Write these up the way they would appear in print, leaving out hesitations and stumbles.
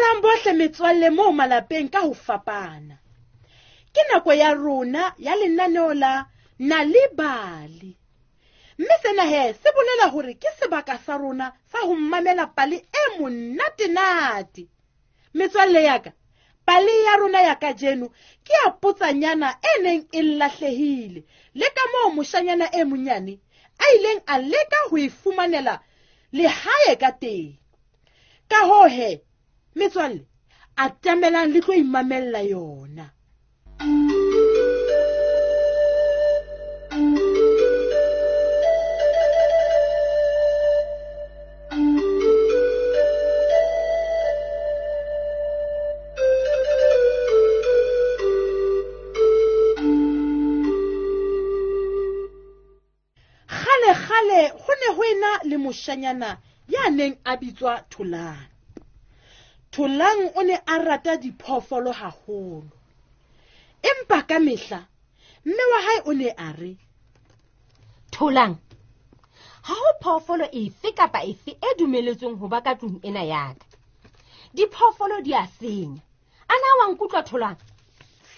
Dumelang bohle metswalle moo malapeng ka ho fapana. Ke nako ya rona ya lenaneo la Nal'ibali. Mme sena he se bolela hore ke sebaka sa rona sa ho mamela pale e monatenate. Metswalle ya ka, pale ya rona ya kajeno ke ya potsanyana e neng e lahlehile le ka moo moshanyana e monyane a ileng a leka ho e fumanela lehae ka teng. Ka hoo he, metswalle, atamelang le tlo imamella yona. Kgale-kgale ho ne ho ena le moshanyana ya neng a bitswa Tholang. Tholang o ne a rata diphoofolo haholo. Empa ka mehla, mme wa hae o ne a re, Tholang, ha ho phoofolo efe kapa efe e dumeletsweng ho ba ka tlung ena ya ka. Diphoofolo di a senya. A na wa nkutlwa, Tholang?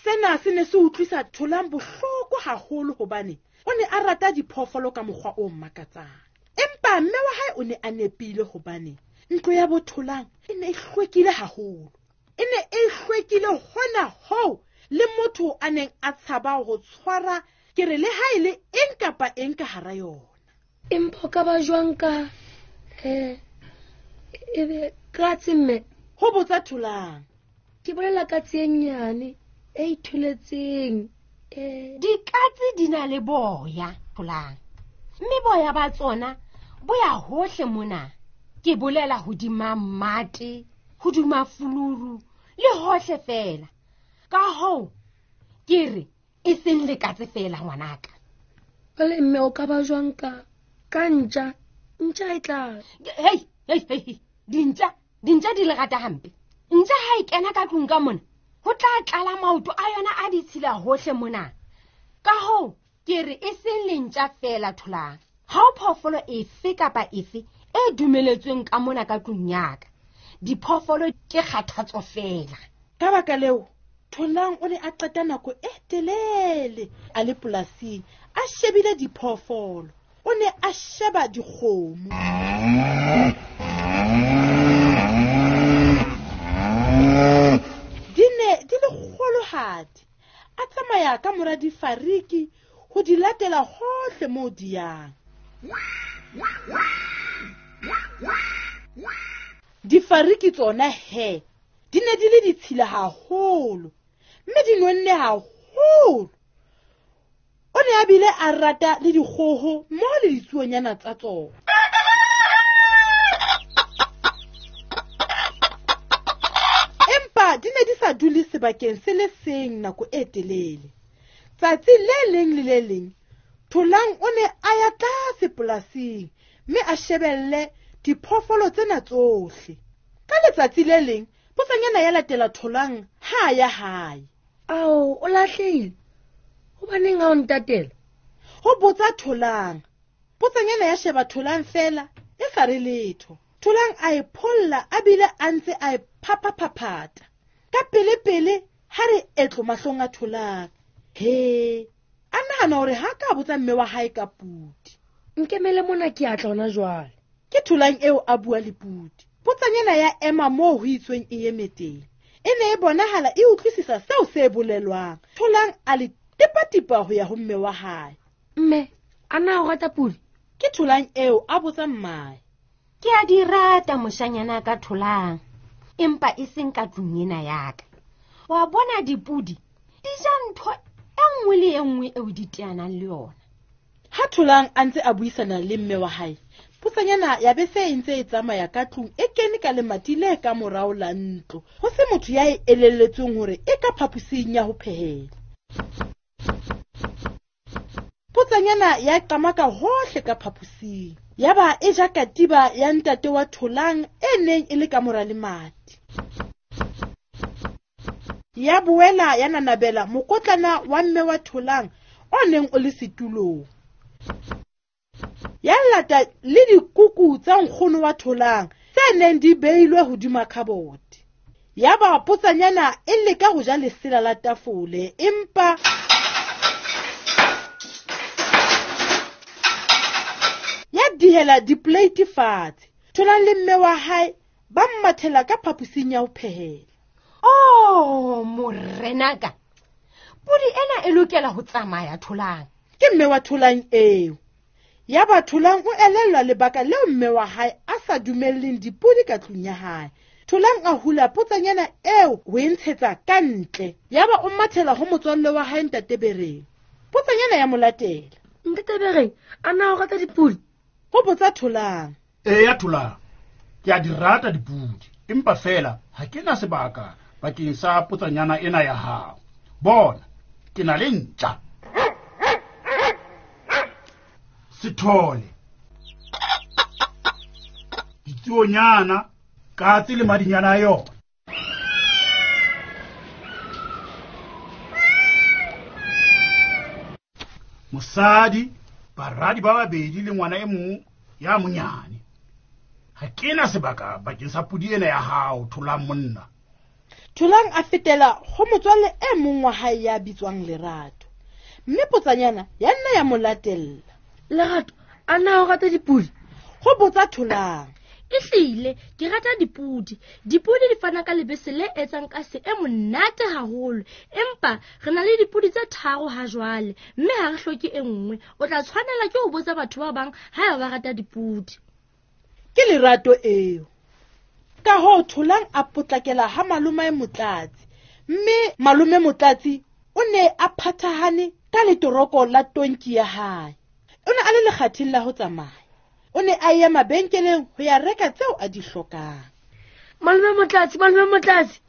Sena se ne se utlwisa Tholang bohloko haholo hobane o ne a rata diphoofolo ka mokgwa o makatsang. Empa mme wa hae o ne a nepile hobane ntlo ya bo Tholang e ne e hlwekile haholo. E ne e hlwekile hona hoo le motho a neng a tshaba ho tshwara ke re le ha e le eng kapa eng ka hara yona. Empa o ka ba jwang ka, ebe katse mme? Ho botsa Tholang. Ke bolela katse e nnyane e itholetseng. Dikatse di na le boya, Tholang. Mme boya ba tsona bo ya hohle mona. Ke bolela hodima mmate, hodima fuluru le hohle fela. Ka hoo ke re e seng lekatse fela ngwanaka. Jwale mme o ka ba jwang ka ntja? Ntja e tla. Hei, hei, hei, dintja, dintja di le rata hampe. Ntja ha e kena ka tlung ka mona, ho tla tlala maoto a yona a ditshila hohle mona. Ka hoo ke re e seng lentja fela, Tholang. Ha ho phoofolo efe kapa efe e dumeletsweng ka mona ka tlung ya ka. Diphoofolo ke kgathatso fela. Ka baka leo, Tholang o ne a qeta nako e telele a le polasing a shebile diphoofolo. O ne a sheba dikgomo. Di ne di le kgolohadi. A tsamaya ka mora difariki ho di latela hohle moo di yang. Difariki tsona he di ne di le ditshila haholo mme di nonne haholo. O ne a bile a rata le dikgoho mmoho le ditsuonyana tsa tsona. Empa di ne di sa dule sebakeng se le seng nako e telele. Tsatsi le leng le le leng, Tholang o ne a ya tlase polasing mme a shebelle diphoofolo tsena tsohle. Ka letsatsi le leng, potsanyana ya latela Tholang ha a ya hae. Ao, o lahlehile? Hobaneng ha o ntatela? Ho botsa Tholang. Potsanyana ya sheba Tholang fela, e sa re letho. Tholang a e pholla a bile a ntse a e phaphaphaphatha. Ka pele-pele ha re etlo mahlong a Tholang. He, a nahana hore ha ka botsa mme wa hae ka pudi. Nkemele mona ke a tla hona jwale. Ke Tholang eo a bua le pudi. Potsanyana ya ema moo ho itsweng e eme teng. E ne e bonahala e utlwisisa seo se bolelwang. Tholang a le tipatipa ho ya ho mme wa hae. Mme, a na o rata pudi? Ke Tholang eo a botsa mmae. Ke a di rata moshanyana ka Tholang, empa e seng ka tlung ena ya ka. Wa bona dipudi di ja ntho e nngwe le e nngwe eo di teanang le yona. Ha Tholang a ntse a buisana le mme wa hae, potsanyana ya be se e ntse e tsamaya ka tlung e kene ka lemati le ka morao la ntlo. Ho se motho ya e elelletsweng hore e ka phaposing ya ho phehela. Potsanyana ya qamaka hohle ka phaposing. Yaba e ja katiba ya ntate wa Tholang e neng e le ka mora lemati. Ya boela ya nanabela mokotlana wa mme wa Tholang o neng o le setulong. Ya lata le dikuku tsa nkgono wa Tholang tse neng di beilwe hodima khabote. Yaba potsanyana e leka ho ja lesela la tafole, empa ya dihela dipoleiti fatshe. Tholang le mme wa hae ba mmathela ka phaposing ya ho phehela. Oh, morenaka, podi ena e lokela ho tsamaya Tholang. Ke mme wa Tholang eo. Yaba Tholang o elellwa lebaka leo mme wa hae a sa dumelleng dipodi ka tlung ya hae. Tholang a hula potsanyana eo ho e ntshetsa ka ntle. Yaba o mathela ho motswalle wa hae Ntate Bereng. Potsanyana ya mo latela. Ntate Bereng, a na o rata dipodi? Ho botsa Tholang. Eya Tholang, ke a di rata dipodi, empa fela ha ke na sebaka bakeng sa potsanyana ena ya hao. Bona, ke na le ntja. Sethole, ditsuonyana, katse le madinyana a yona. Mosadi, baradi ba babedi le ngwana e mong ya monyane. Ha ke na sebaka bakeng sa podi ena ya hao, Tholang monna. Tholang a fetela ho motswalle e mong wa hae ya bitswang Lerato. Mme potsanyana ya nna ya mo latella. Lerato, a na o rata dipodi? Ho botsa Tholang. Ehlile, ke rata dipodi. Dipodi di fana ka lebese le etsang kase e monate haholo. Empa re na le dipodi tse 3 ha jwale, mme ha re hloke e nngwe. O tla tshwanela ke ho botsa batho ba bang haeba ba rata dipodi. Ke Lerato eo. Ka hoo Tholang a potlakela ha malomae Motlatsi. Mme malome Motlatsi o ne a phathahane ka letoroko la tonki ya hae. O ne a le lekgatheng la ho tsamaya. O ne a ya mabenkeleng ho ya reka tseo a di hlokang. Malome Motlatsi, malome Motlatsi,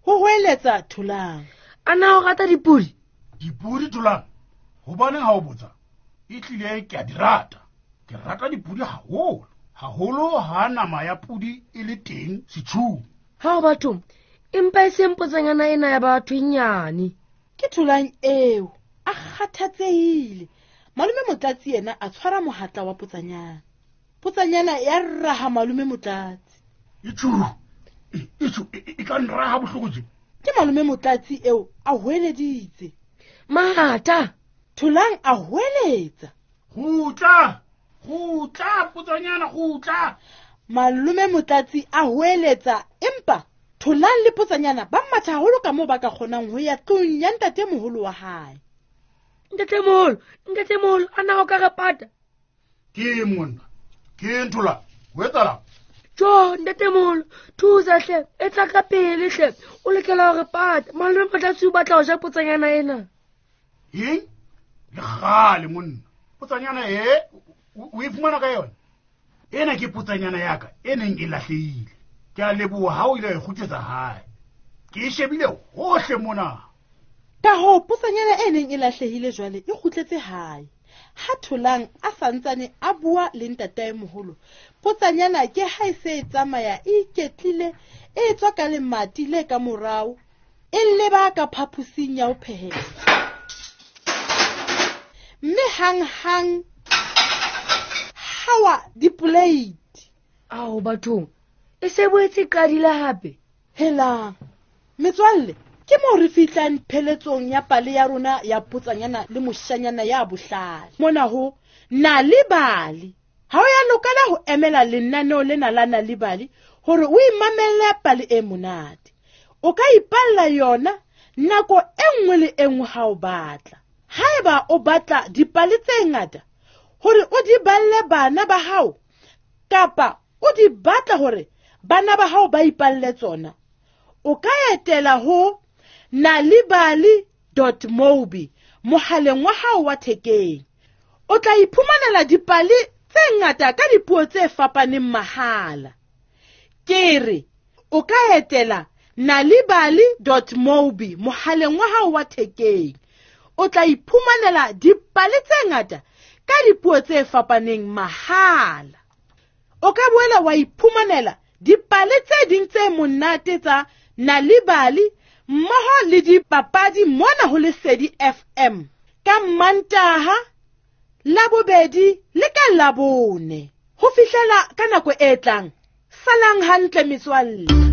ho hoeletsa Tholang. A na o rata dipodi? Dipodi, Tholang? Hobaneng ha o botsa? Ehlile ke a di rata. Ke rata dipodi haholo. Haholo ha nama ya podi e le teng setjhung. Ha o batho, empa e seng potsanyana ena ya batho e nyane. Ke Tholang eo, a kgathatsehile. Malome Motlatsi yena a tshwara mohatla wa potsanyana. Potsanyana ya raha malome Motlatsi. Itjhu, itjhu, e ka nraha bohloko tje. Ke malome Motlatsi eo a hoeleditse. Matha! Tholang a hoeletsa. Kgutla! Kgutla, potsanyana, kgutla! Malome Motlatsi a hoeletsa, empa Tholang le potsanyana ba matha haholo ka moo ba ka kgonang ho ya tlung ya ntatemoholo wa hae. Ntatemoholo, ntatemoholo, a na o ka re pata? Ke monna, ke Tholang, ho etsahalang? Jo, ntatemoholo, thusa hle, e tla ka pele hle, o lokela ho re pata. Malome Motlatsi o batla ho ja potsanyana ena. Eng? Le kgale monna. Potsanyana e, o e fumana ka yona? Ena ke potsanyana ya ka e neng e lahlehile. Ke a leboha ha o ile wa e kgutlisetsa hae. Ke e shebile hohle mona. Ka hoo potsanyana e neng e lahlehile jwale e kgutletse hae. Ha Tholang a santsane a bua le ntataemoholo, potsanyana ke ha e se e tsamaya e iketlile, e tswa ka lemati le ka morao, e leba ka phaposing ya ho phehela. Mme hanghang hawa dipoleiti. Ao bathong, e se boetse e qadile hape. Helang, metswalle, ke moo re fihlang pheletsong ya pale ya rona ya potsanyana le moshanyana ya bohlale. Mona ho Nal'ibali. Ha o ya lokela ho emela lenaneo lena la Nal'ibali hore o imamelle pale e monate. O ka ipalla yona nako e nngwe le e nngwe ha o batla. Haeba o batla dipale tse ngata hore o di balle bana ba hao, kapa o di batla hore bana ba hao ba ipalle tsona, o ka etela ho nalibali.mobi mohaleng wa hao wa thekeng. O tla iphumanela dipale tse ngata ka dipuo tse fapaneng mahala. Ke re, o ka etela nalibali.mobi mohaleng wa hao wa thekeng. O tla iphumanela dipale tse ngata ka dipuo tse fapaneng mahala. O ka boela wa iphumanela dipale tse ding tse monate tsa Nal'ibali mmoho le dipapadi mona ho Lesedi FM ka Mantaha, Labobedi le ka Labone. Ho fihlela ka nako e tlang, salang hantle metswalle.